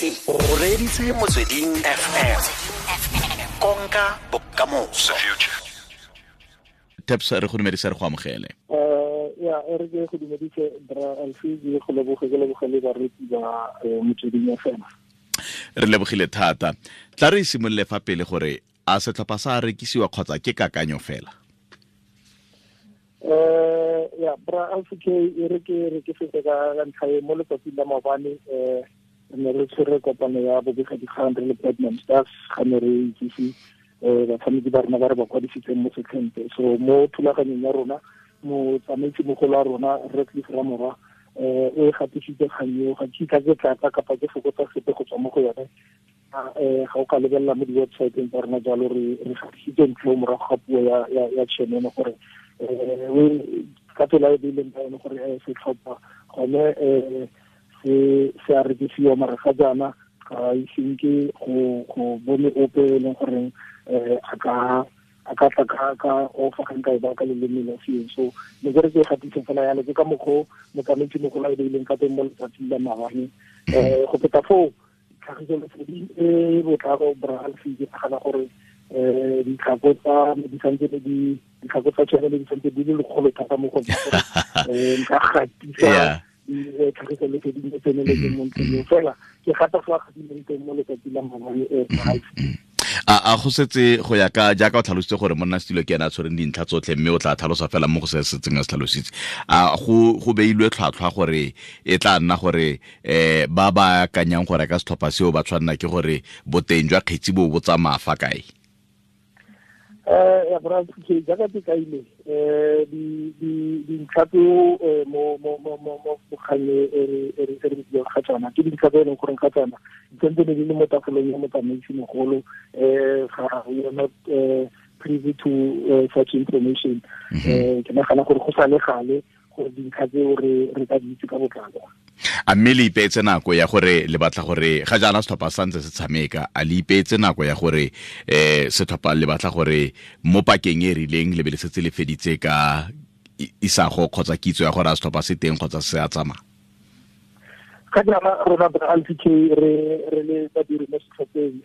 O reditse Motsweding FM, konka bokamoso. Taps, re go dumedisa, re go amogele. Ya, e re ke go dumedise, bra Alfi, ke go leboge, ke leboge le baretsi ba Motsweding FM. Re lebogile thata. Tla re simolole fa pele gore a setlhopha sa rekisiwa kgotsa ke kakanyo fela? Ya, bra Alfi, ke e re ke re ke fete ka ntlha e. Mo letsatsing la maobane re ne re tshwere kopano ya bobegadikgang re le Platinum Stars, ga ne re itsise batshameki ba rona ba re ba kwadisitseng mo setlheng. So mo thulaganyong ya rona, motsamaisi mogolo wa rona, Redcliff Ramora, o e gatisitse kgang eo. Ga ke kitla ke tlatsa kapa ke fokotsa sepe go tswa mo go yone. Ga o ka lebelela mo di-websiteng tsa rona jalo, re gatisitse ntlo morago ga puo ya chairman gore ka tsela e beileng ka yone gore setlhopha gone se a rekisiwa, mara ga jaana ga iseng ke go bone ope e leng goreng a ka tla ka ofa, ga nka e ba ka leleme la seeng. So ne ke re ke gatise fela yalo, ke ka mokgwa motsamaisi mogolo a e beileng ka teng mo letsatsing la maabane. Go feta foo, tlhagiso leseding e botlalo, bra Alfi, ke nagana gore ditlhako tsa di santse di ditlhako tsa tšhelete di santse di le lekgolo thata mo go nna gore nka gatisa tlhagiso leseding e tseneletseng mo ntlheng eo. Fela ke gata fa gatileng teng mo letsatsi la maabane, Alfi. A go setse go ya ka jaaka o tlhalositse gore monna setilo ke ena a tshwereng dintlha tsotlhe, mme o tla tlhalosa fela mo go se setseng a se tlhalositse, a go beilwe tlhwatlhwa gore e tla nna gore ba ba akanyang go reka setlhopha seo ba tshwanela ke gore boteng jwa kgetsi bo bo tsamaya fa kae? Ya, bra, ke jaaka ke kaile di di dintlha tseo mo kgang e re buang ga tsona, ke dintlha tse e leng gore ga tsona di santse di le mo tafolong ya motsamaisi mogolo. Ga we are not privy to such information. Ke nagana gore go sa le gale gore dintlha tseo re ka di itse ka botlalo. A mme le ipeetse nako ya gore le batla gore, ga jaana setlhopha sa ntse se tshameka, a le ipeetse nako ya gore setlhopha le batla gore mo pakeng e rileng le be le setse le feditse ka isago kgotsa kitso ya gore a setlhopha se teng kgotsa se a tsamaya? Ga jaana rona, bra Alfi, re le badiri mo setlhopheng,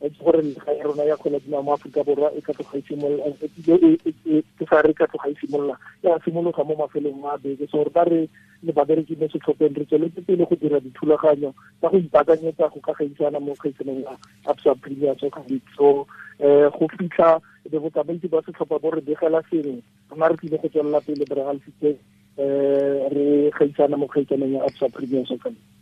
itse gore lega ya rona ya kgwele dinao mo Aforika Borwa e ka tloga e simolola, ke sa re ka tloga e simolola, ya simologa mo mafelong a beke. So rona re le babereki mo setlhopheng re tsweletse pele go dira dithulaganyo tsa go ipaakanyetsa go ka gaisana mo kgaisanong ya Absa Premier Soccer League. So go fitlha be botsamaisi ba setlhopha bo re begela sengwe, rona re tlile go tswelela pele, bra Alfi, re gaisana mo kgaisanong ya Absa Premier Soccer League.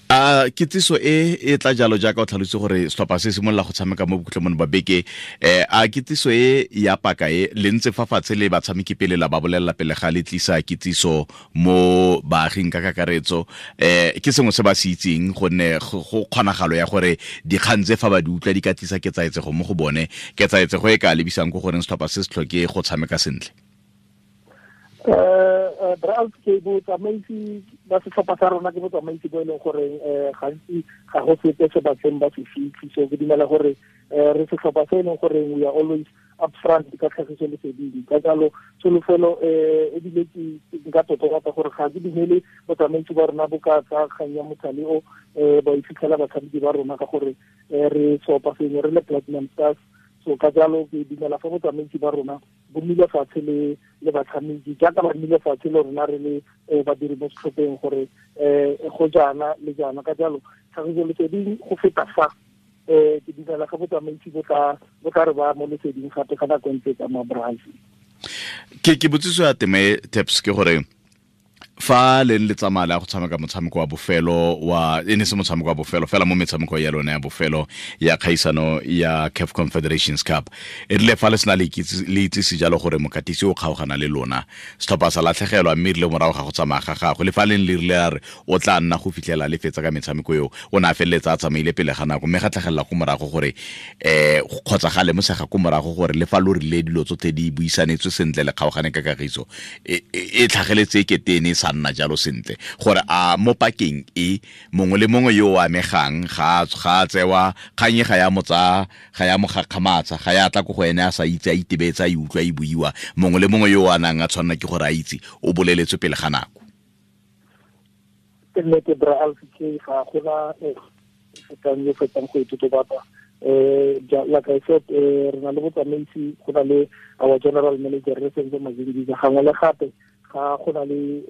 A kitsiso e e tla jalo jaaka o tlhalositse gore setlhopha se simolola go tshameka mo bokhutlong ba beke, a kitsiso e ya paka e le ntse fa fatshe le batshameki pele la ba bolelela pele ga le tlisa kitsiso mo baaging ka kakaretso? Ke sengwe se ba se itseng, gonne go kgonagalo ya gore dikgang tse fa ba di utlwa di ka tlisa ketsaetsego mo go bone, ketsaetsego e ka lebisang ko goreng setlhopha se se tlhoke go tshameka sentle? Bra, ke botsamaisi ba setlhopha sa rona, ke botsamaisi bo e leng gore gantsi ga go sepe se batseng ba se fitlhe. So ke dumela gore re setlhopha se e leng gore we are always upfront ka tlhagiso leseding. Ka jalo tsholofelo ebile ke nka totobatsa gore ga ke dumele botsamaisi ba rona bo ka tsa kgang ya mothale o ba e fitlhela batshameki ba rona, ka gore re seopa sengwe re le Platinum Stars. So ka jalo ke dumela fa botsamaisi ba rona bo nnile fatshe le batshameki jaaka ba nnile fatshe le rona re le badiri mo setlhopheng gore go jaana le jaana. Ka jalo tlhagiso leseding go feta fa, ke dumela ga botsamaisi bo tla re ba mo leseding gape ga nako e ntse tsamaya, bra Alfi. Ke botsiso ya teme, Taps, ke gore fa leng le tsamaya le ya go tshameka motshameko wa bofelo wa, e ne se motshameko wa bofelo fela mo metshameko ya lone ya bofelo ya kgaisano ya CAF Confederations Cup, e rile fa le sena le itsise jalo gore mokatisi o kgaogana le lona, setlhopha sa latlhegelwa, mme rile morago ga go tsamaya ga gagwe, le fa leng le rile a re o tla nna go fitlhela le fetsa ka metshameko eo, o ne a feleletsa a tsamaile pele ga nako, mme ga tlhagelela ko morago gore kgotsa ga lemosega ko morago gore le fa lo rile dilo tsotlhe di buisanetswe sentle, le kgaogane ka kagiso, e tlhageletse e kete e ne e sa nna jalo sentle, gore a mo pakeng e mongwe le mongwe yo o amegang ga a tsewa kgang e ga ya mo tsaya, ga ya mo gakgamatsa, ga ya tla ko go ene a sa itse, a itebetse a e utlwa e buiwa, mongwe le mongwe yo o a nang a tshwanela ke gore a itse o boleletswe pele ga nako? Ke nnete bra Alfie, ga gona fetang yo fetang go itotobatsa. Like I said, re na le botsamaisi, go na le our general manager re Senzo Mazingiza, gangwe le gape ga go na le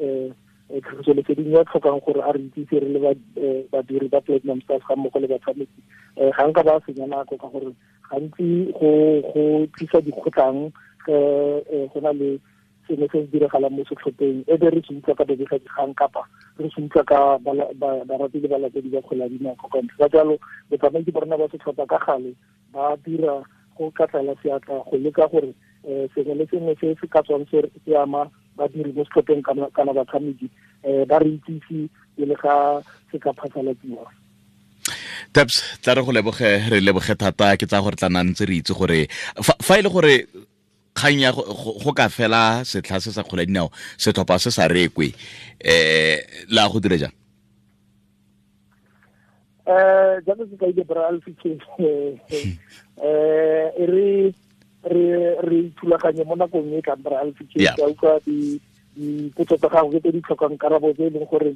tlhagiso leseding ya tlhokang gore a re itsise re le badiri ba Platinum Stars ga mmogo le batshameki. Ga nka ba senya nako ka gore gantsi go tlisa dikgotlang go na le sengwe se se diragalang mo setlhopheng, e be re se utlwa ka babegadikgang kapa re se utlwa ka barati le balatedi ba kgwele ya dinao ka ntle. Ka jalo botsamaisi ba rona ba setlhopha ka gale ba dira go ka tlala seatla go leka gore sengwe le sengwe se se ka tswang se ama badiri mo setlhopheng kana batshameki, ba re itsise pele ga se ka phasalatsiwa. Taps, tla re go leboge, re leboge thata. Ke tsa gore tla nna ntse re itse gore fa e le gore kgang ya go ka fela setlha se sa kgwele ya dinao, setlhopha se sa rekwe, la go dire jang? Jaaka ke kaile bra Alfie, re re ithulaganye mo nakong e tlang bra Alfie. Ke utlwa dipotso tsa gago tse di tlhokang karabo tse e leng gore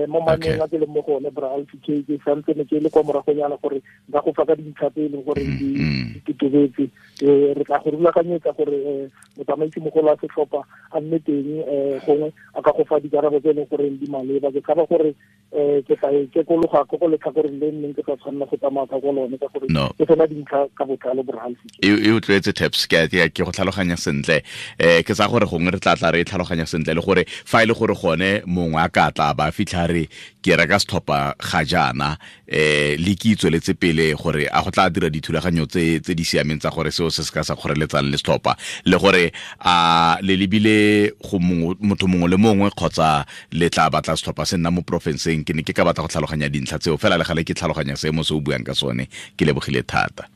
mo maneng a ke leng mo go one bra Alfie, ke santse ne ke le kwa moragonyana gore nka go fa ka dintlha tse e leng gore di totobetse. Re tla go rulaganyetsa gore motsamaisi mogolo wa setlhopha a nne teng, gongwe a ka go fa dikarabo tse e leng gore di maleba. Ke tshaba gore ke tla kekologa ko go letlhakoreng le nneng ke sa tshwanela go tsamaya ka ko lone ka gore ke sena dintlha ka botlalo bra Alfie. E utlwetse Taps, ke go tlhaloganya sentle. Ke tsa gore gongwe re tla tla re tlhaloganya sentle le gore fa e le gore gone mongwe a ka tla ba fitlha re ke reka setlhopha ga jaana, le ke itsweletse pele gore a go tla dira dithulaganyo tse di siameng tsa gore seo se se ka sa kgoreletsang le setlhopha, le gore a le lebile go motho mongwe le mongwe kgotsa le tla batla setlhopha se nna mo porofenseng. Ke ne ke ka batla go tlhaloganya dintlha tseo fela le gale ke tlhaloganya seemo se o buang ka sone. Ke lebogile thata.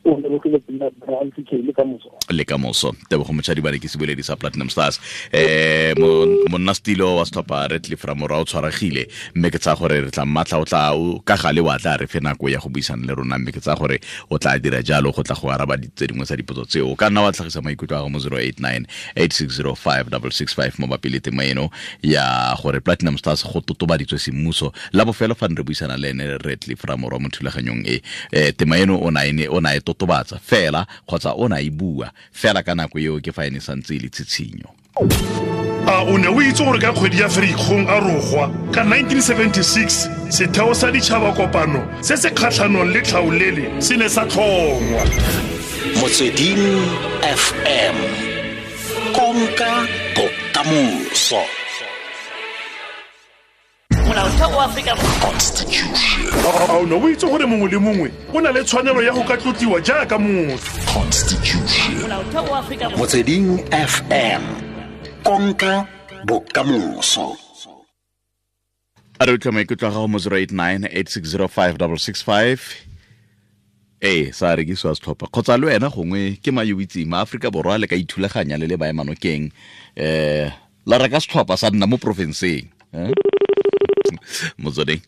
Le ka moso. Tebogo Mochadibane ke seboledi sa Platinum Stars. Monna stilo wa setlhopha Redcliffe Ramora o tshwaregile, mme ke tsaya gore re tla mmatla, o tla ka gale wa tla re fe nako ya go buisana le rona, mme ke tsaya gore o tla dira jalo go tla go araba tse dingwe tsa dipotso tseo. O ka nna wa tlhagisa maikutlo a gago mo 089 8605 665 mabapi le tema eno ya gore Platinum Stars go totobaditswe semmuso la bofelo fa re buisana le ene Redcliffe Ramora mo thulaganyong e. Tema eno o na e totobatsa fela kgotsa o na e bua fela ka nako eo ke fa ene santse e le tshitshinyo. A o ne o itse gore ka kgwedi ya Ferikgong a rogwa ka 1976 setheo sa ditšhaba kopano se se kgatlhanong le tlhaolele se ne sa tlhongwa? Motsweding FM, konka bokamoso. Constitution. A o ne o itse gore mongwe le mongwe o na le tshwanelo ya go ka tlotliwa jaaka motho? Constitution. Motsweding FM, konka bokamoso. A re utlwa maikutlo a gago mo 089 8605 665. Ee, sa rekisiwa setlhopha kgotsa le wena gongwe ke mayo itseng ma Aforika Borwa le ka ithulaganya le le baemanokeng, la reka setlhopha sa nna mo porofenseng. Motsweding.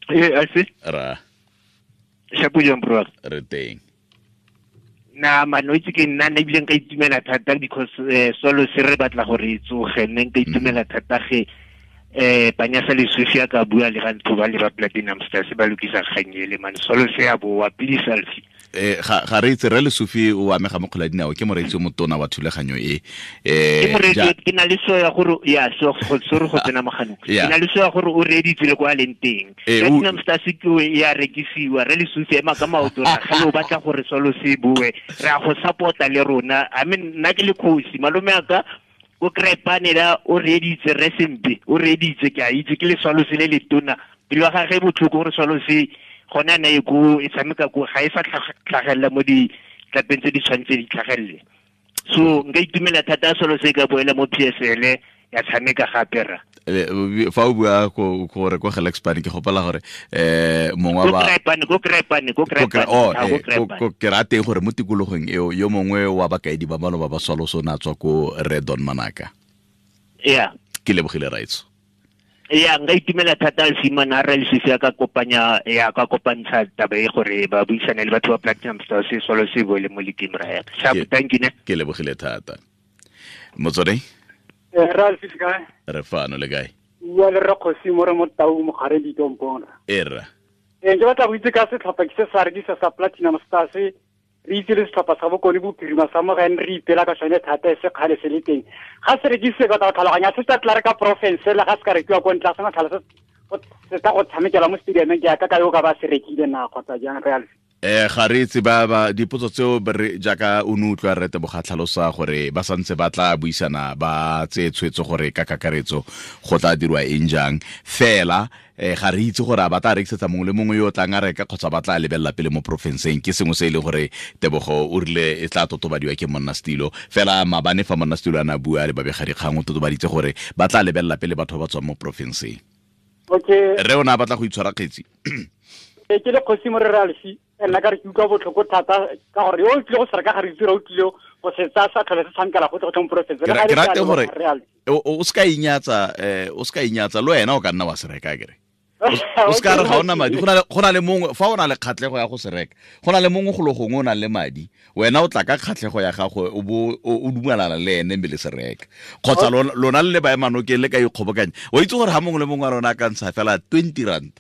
I see. Ra. Shapo jang bro. Re teng. Na man o itse ke nna ne ebile nka itumela thata because solo se re batla gore e tsoge, nne nka itumela thata ge Panyasa Lesufi a ka bua le ga ntho ba le ba Platinum Stars ba lokisa kgang ele man, solo se ya boa please Alfie. Ga re itse re Lesufi o amega mo kgwele ya dinao, ke moreetsi o motona wa thulaganyo e. Ke moreetsi, ke na le so ya gore ya so go sorry go tsena moganong. Ke na le so ya gore o reeditse le kwa leng teng. Platinum Stars ke ya rekisiwa, re Lesufi ema ka maoto ra ga o batla gore solo se bue, re a go support-a le rona. I mean nna ke le kgosi, malome a ka o krepane la o reeditse re sempe, o reeditse ke a itse ke le swalo se le letona. Pelo ya gagwe botlhoko gore swalo se gone a ne e ko e tshameka ko ga e sa tlhagelela mo ditlapeng tse di tshwanetse di tlhagelele. So nka itumela thata swalo se ka boela mo PSL ya tshameka gape ra. Fa o bua gore ko Gelexpan ke gopela gore mongwe wa ko Krepane ke rate gore mo tikologong eo yo mongwe wa bakaedi ba maloba ba swalo so na tswa ko Redon Manaka. Yeah. Ke lebogile raitso. Ya nka itumela thata Simon a re Lesufi a ka kopanya ya ka kopantsha taba e gore ba buisane le batho ba Platinum Stars se solo se boele mo league ra ya. Sharp, thank you ne. Ke lebogile thata. Motsweding. Ralph kae? Re fano le kae? Bua le Rre mo re mo Tau mogare ditompong. Erra. Ke batla go itse ka setlhopha ke se sa rekisa sa Platinum Stars, re itse le setlhopha sa Bokone Bophirima sa mo ga re ipela ka sone thata e se kgale se le teng. Ga se rekise ka tlhaloganya se tla re ka province le ga se ka rekiwa ko ntle ga sena se tla go tshamekela mo stadiumeng ke ka yo ka ba se rekile na kgotsa jang real. Ga re itse ba dipotso tseo jaaka o ne utlwa Rre Tebogo tlhalosa gore ba santse ba tla buisana ba tseye tshwetso gore ka kakaretso go tla dirwa eng jang fela ga re itse gore a ba tla rekisetsa mongwe le mongwe yo o tlang a reka kgotsa ba tla lebelela pele mo porofenseng. Ke sengwe se e leng gore Tebogo o rile e tla totobadiwa ke monna setilo fela maabane fa monna setilo a ne a bua le babegadikgang o totobaditse gore ba tla lebelela pele batho ba ba tswang mo porofenseng. Okay. Re o ne a batla go itshwara kgetsi. Ke le kgosi mo re Ralfi, nna ka re ke utlwa botlhoko thata ka gore yo o tlile go se reka ga re itse o tlile go se tsaya sa tlhole se tshamekela go tle mo porofense. Ke rate gore o se ka inyatsa, o se ka inyatsa le wena o ka nna wa se reka kere. O se ka re ga ona madi, go na le mongwe fa o na le kgatlhego ya go se reka, go na le mongwe go le gongwe o nang le madi, wena o tla ka kgatlhego ya gago o bo o dumelana le ene mme le se reka. Kgotsa lona le le baemanokeng le ka ikgobokanya. O itse gore ha mongwe le mongwe wa rona a ka ntsha fela 20 rand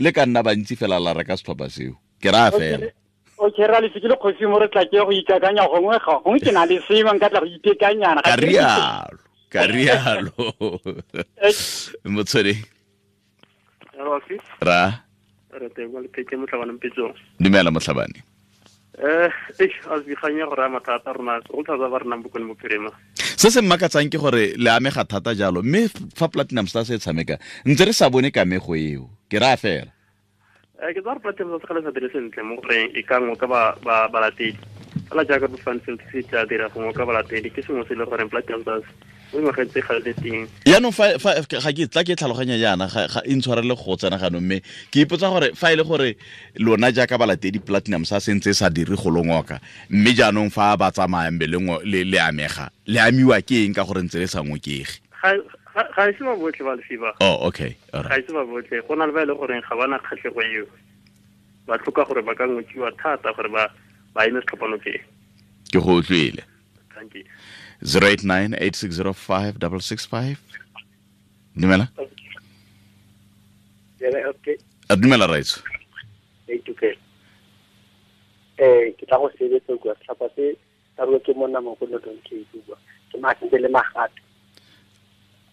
le ka nna bantsi fela la reka setlhopha seo. Ke raya fela. Okay, ra le ke le kgosi mo re tla ke go ikakanya gongwe ga gongwe ke na le sengwe nka tla go itekanyana. Ka rialo, ka rialo. Motswedi. Ra. Re teng le pheke motlhabane mpetsong. Dumela motlhabane. A gore mathata rona go thata ba rena Bokone Bophirima. Se se mmakatsang ke gore le amega thata jalo mme fa Platinum Stars e tshameka ntse re sa bone kamego eo. Ke raya fela. Ke tsaya Platinum Stars ga le sa dire sentle mo goreng e ka ngoka ba balatedi. Fela jaaka bo Fanfield se tla dira go ngoka balatedi ke sengwe se le goreng Platinum Stars mo ngwageng tse ga le teng. Jaanong fa ga ke tla ke tlhaloganya jaana ga e ntshwarele go tsena ganong mme ke ipotsa gore fa e le gore lona jaaka balatedi Platinum sa sentse sa dire go longoka mme jaanong fa ba tsamaya mbe le le amega le amiwa ke eng ka gore ntse le sa ngokege. Ga e se ba botlhe ba lefiba. Oh, okay. All right. Ga e se ba botlhe go na le ba e le goreng ga bana kgatlhego eo. Ba tlhoka gore ba ka ngokiwa thata gore ba eme setlhopha nokeng. Ke go utlwile. Thank you. 089 8605 665. Dumela. Okay. A dumela raitso. Okay. Ke tla go sebetsa kwa setlhopha se sa rua ke monna mo go Northern Cape bua. Ke matse le magato.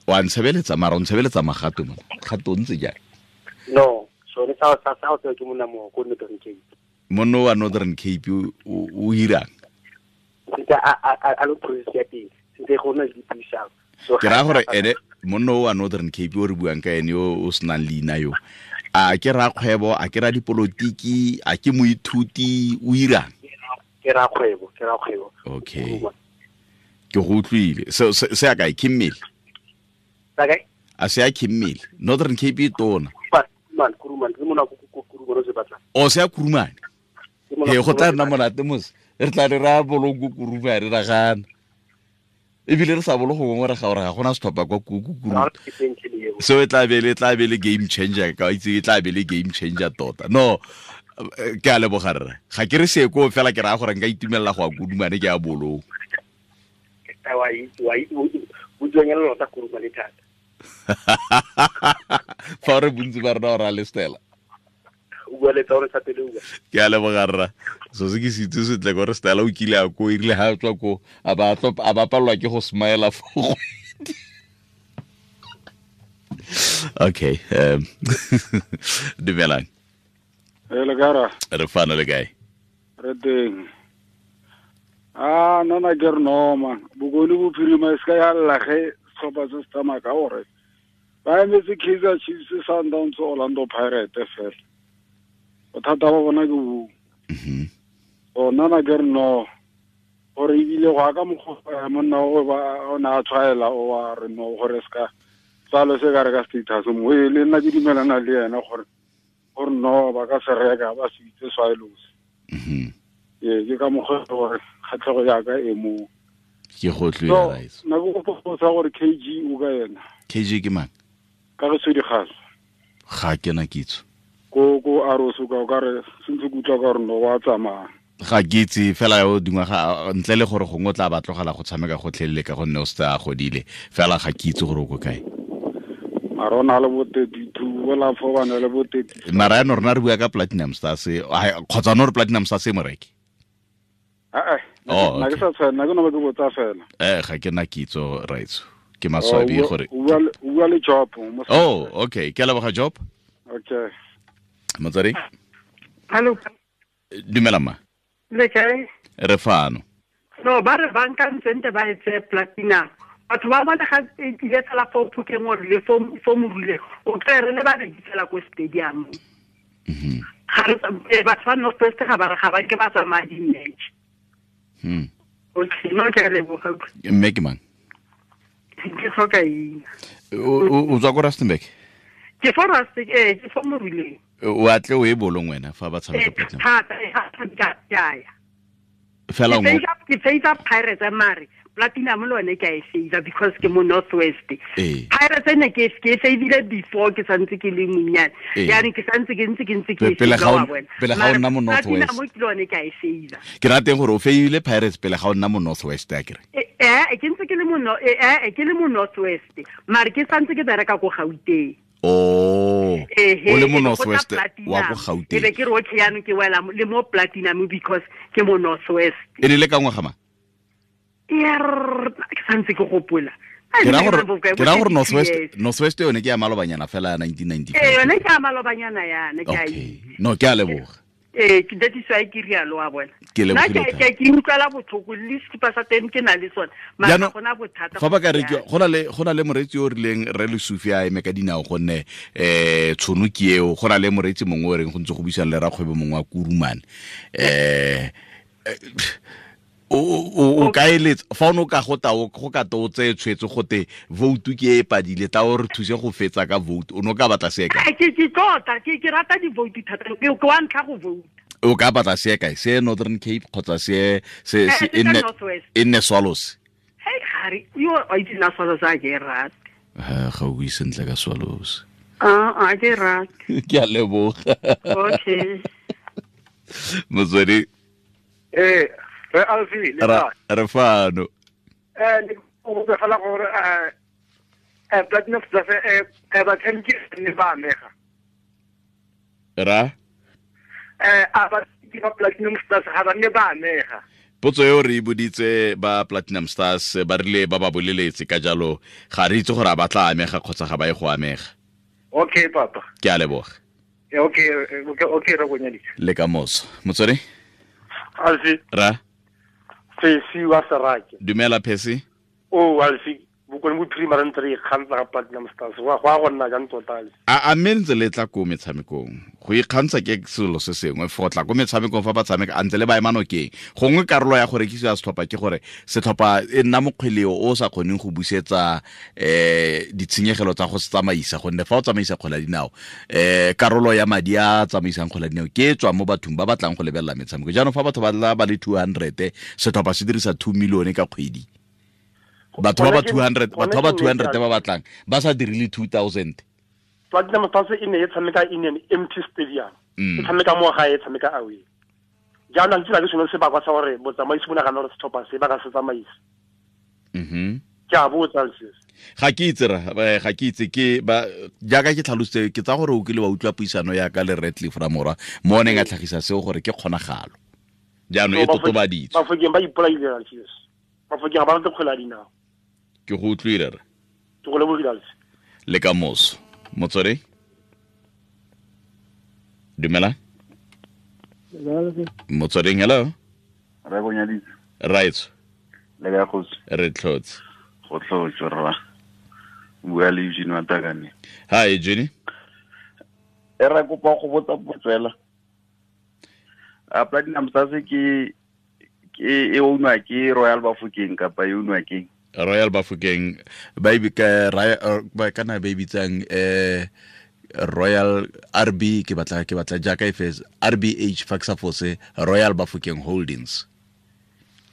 Wa ntshebeletsa mara o ntshebeletsa magato mo. Gato ntse jang? No, sone sa ke monna mo go Northern Cape. Monno wa Northern Cape o irang? Ntse a lo process ya teng ntse go na le dipuisano. Ke raya gore ene monno wa Northern Cape o re buang ka ene yo o senang leina yo a ke ra kgwebo, a ke ra dipolotiki, a ke moithuti, o irang? Ke ra kgwebo. Okay. Ke go utlwile. Se a kae ke mmele? A se a ke mmele. Northern Cape e tona. Kurumane, ke mona go Kurumane se batla. O se a Kurumane. He go tla nna monate mos. Re tla re ra bolong go Kurumane ra gana. Ebile re sa bolo go ngwe re ga gore ga gona setlhopha kwa Kurumane. So e tla be le game changer ka itse e tla be le game changer tota. No, ke a leboga rre. Ga ke re se ko fela ke raya gore nka itumelela go a Kurumane ke a bolong. Wa itse o tswengela lota Kurumane thata. Fa re bontsi ba rona ora le Stella. O bua le tsa gore sa pele o bua. Ke a leboga rra. So se ke se itse sentle gore Stella o kile a ko erile ha tswa ko a ba palelwa ke go smile fo kgwedi. Okay, dumelang. Le kae? Re fana le kae? Re teng. Ah, nna ke re no man. Bokone Bophirima e se ka ya lla ge setlhopha se se tsamaya ka gore ba emetse Kaizer Chiefs, Sundowns, Orlando Pirates fela. Bothata ba bona ke bo. So nna ke re no gore ebile go aka mokgwa monna o ba o ne a tshwaela o wa re no gore se ka tsalo se ka re ka status mo e le nna ke dumelana le yena gore no ba ka se reka ba se itse Swallows. Ee, ke ka mokgwa gore kgatlhego ya ka e mo. Ke go tlwela raitso. Nna ke go botsa gore KG o ka yena. KG ke mang? Ka re Sedigaso. Ga ke na kitso. Ko Aroso ka o ka re sentse ke utlwa ka gore no wa tsamaya. Ga ke itse fela yo dingwaga ntle le gore gongwe o tla ba tlogela go tshameka gotlhelele ka gonne o setse a godile fela ga ke itse gore o ko kae. Mara o na le bo 32 bola fo ba na le bo 30. Mara ya rona re bua ka Platinum Stars kgotsa no re Platinum Stars e moreki. Oh, na ke sa tshwana ke no ba ke botsa fela. Ga ke na kitso raitso. Ke maswabi gore o bua le Job. Oh, okay. Ke a leboga Job. Okay. Motswedi. Hello. Dumela ma. Le kae? Re fano. No, ba re banka ntsente ba etse Platinum. Batho ba bona ga e tlile fela fo Phokeng or le fo Morule. O tla re le ba rekisela ko stadium. Ga re batho ba North West ga ba re ga ba ke ba tsamaya di-match. Okay, no ke a leboga. Mme ke mang? Ke tlhoka eng? O tswa ko Rustenburg? Ke fo Rustenburg, ke fo Moruleng. O atle o e bolong wena fa ba tshameka Platinum. Thata, ga tshameka ke a ya. Fela ke favor Pirates mare Platinum le yone ke a e favor because ke mo North West. Pirates ne ke e favorile before ke santse ke le monnyane. Yaanong ke santse ke ntse ke pele ga o nna mo North West. Platinum ke yone ke a e favor. Ke rateng gore o favorile Pirates pele ga o nna mo North West a kere. Ke ntse ke le mo ke le mo North West. Mare ke santse ke bereka ko Gauteng. Oh, o le mo North West wa ko Gauteng. Ke be ke re okay yaanong ke wela le mo Platinum because ke mo North West. E ne le ka ngwaga mang? Ke santse ke gopola. Ke ra gore North West yone ke ya malobanyana fela ya 1995. Yone ke ya malobanyana yana ke a Okay. No, ke a leboga. Ke that is why ke rialo wa bona. Ke lebogile. Ke utlwela botlhoko le sekipa sa teng ke na le sone. Mara gona bothata. Fa ba ka re go na le moreetsi yo o rileng re Lesufi a eme ka dinao gonne tshono ke eo, go na le moreetsi mongwe o reng go ntse go buisana le rakgwebo mongwe wa Kurumane. O ka eletsa fa o no ka go ta go ka to tse tshwetso gote vote ke e padile ta o re thuse go fetsa ka vote o no ka batla se kae? Ke tota ke rata di vote thata ke wa ntlha go vote. O ka batla se kae? Se Northern Cape kgotsa se e nne Swallows? Hey gare yo a itse na Swallows a ke rate. Ga o bue sentle ka Swallows. A ke rate. Ke a leboga. Okay. Motswedi. Re Alfi le ka re fano. Ne o botsa fela gore Platinum Stars ba tshameki ne ba amega. Ra? A ba ba Platinum Stars ga ba ne ba amega. Potso eo re e boditse ba Platinum Stars ba rile ba ba boleletse ka jalo ga re itse gore a ba tla amega kgotsa ga ba ye go amega. Okay papa. Ke a leboga. Okay okay re bonyaditse. Le ka moso. Motswedi? Alfi. Ra? Phesi wa Serake. Dumela Phesi. O Alfi, bokone bophirima re ntse re ikgantsha ga Platinum Stars. Go a go nna jang tota Alfi? A mme ntse le tla ko metshamekong. Go ikgantsha ke selo se sengwe fo tla ko metshamekong fa ba tshameka a ntse le ba ema nokeng. Gongwe karolo ya go rekisiwa setlhopha ke gore setlhopha e nna mokgweleo o sa kgoneng go busetsa ditshenyegelo tsa go se tsamaisa gonne fa o tsamaisa kgwele ya dinao karolo ya madi a tsamaisang kgwele ya dinao ke e tswa mo bathong ba batlang go lebelela metshameko. Jaanong fa batho ba tla ba le 200 setlhopha se dirisa 2 million ka kgwedi. Batho ba 200 batho ba 200 ba batlang ba sa dirile 2000. Platinum Stars e ne e tshameka in an empty stadium. E tshameka mo gae e tshameka away. Jaanong ke tsela ke sone sebakwa sa gore botsamaisi bo nagana gore setlhopha se ba ka se tsamaisa. Ke a botsa se. Ga ke itse ra, ga ke itse ke ba jaaka ke tlhalositse ke tsa gore o kile wa utlwa puisano ya ka le Redcliffe Ramora mo neng a tlhagisa seo gore ke kgonagalo. Jaanong e totobaditswe. Bafokeng ba ipolaile Alfios. Bafokeng ba rata kgwele ya dinao. Ke go utlwile re. Ke go lebogile Alfi. Le ka moso. Motswedi? Dumela? Motsweding, hello? Re bonyaditse. Right. Le ka kgosi. Re tlhotse. Go tlhotse rra. Bua le Eugene wa Takane. Hi Eugene. E re kopa go botsa potso fela. A Platinum Stars ke e ownwa ke Royal Bafokeng kapa e ownwa ke Royal Bafokeng ba e ba kana ba e bitsang Royal RB ke batla jaaka e fes RBH Faxafose Royal Bafokeng Holdings.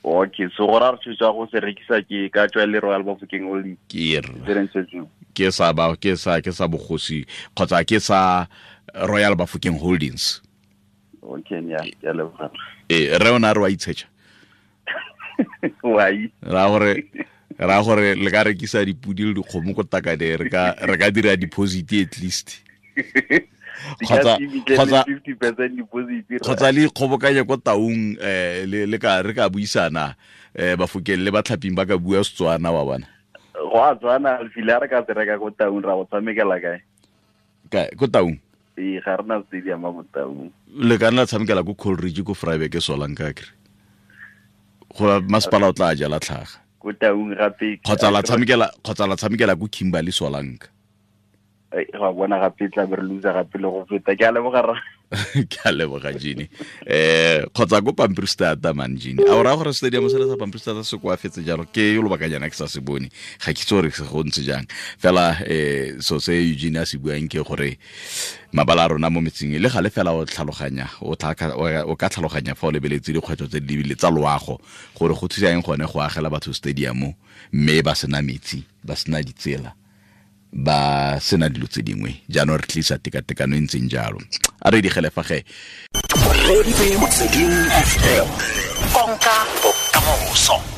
Okay, so go ra re tshwetsa go se rekisa ke ka tswa le Royal Bafokeng Holdings. Ke sa ba ke sa bogosi kgotsa ke sa Royal Bafokeng Holdings. Okay, nya ke a leboga. Re ona re wa itshetsa. Wai. Ra gore Ra gore le ka rekisa dipudi le dikgomo ko Takade, re ka dira deposit at least. Kgotsa 50% deposit. Kgotsa le ikgobokanye ko Taung, le ka re ka buisana, Bafokeng le Batlhaping ba ka bua Setswana wa bona. Go a tswana file re ka se reka ko Taung ra go tshamekela kae? Kae ko Taung? Ee, ga re na stadium mo Taung. Le ka nna tshamekela ko Coleridge ko Vryburg Solanka kere. Go masepala o tla jala tlhaga. Ko Taung gape. Kgotsa la tshamekela ko Kimberley Solanka. Ga bona gape tla be re loser gape le go feta. Ke a leboga ra. Ke a leboga Gene. Kgotsa ko Pampierstad man Gene. A o raya gore stadium se le sa Pampierstad se koafetse jalo ke yo lobakanyana ke sa se bone. Ga ke itse gore se go ntse jang. Fela so se Eugene a se buang ke gore mabala a rona mo metseng le gale fela o tlhaloganya o ka tlhaloganya fa o lebeletse dikgwetlho tse di lebile tsa loago gore go thusa eng gone go agela batho stadium mme ba sena metsi, ba sena ditsela, ba sena dilo tse dingwe. Jaanong re tlisa tekatekano e ntseng jalo. A re digele fa ge. Konka bokamoso.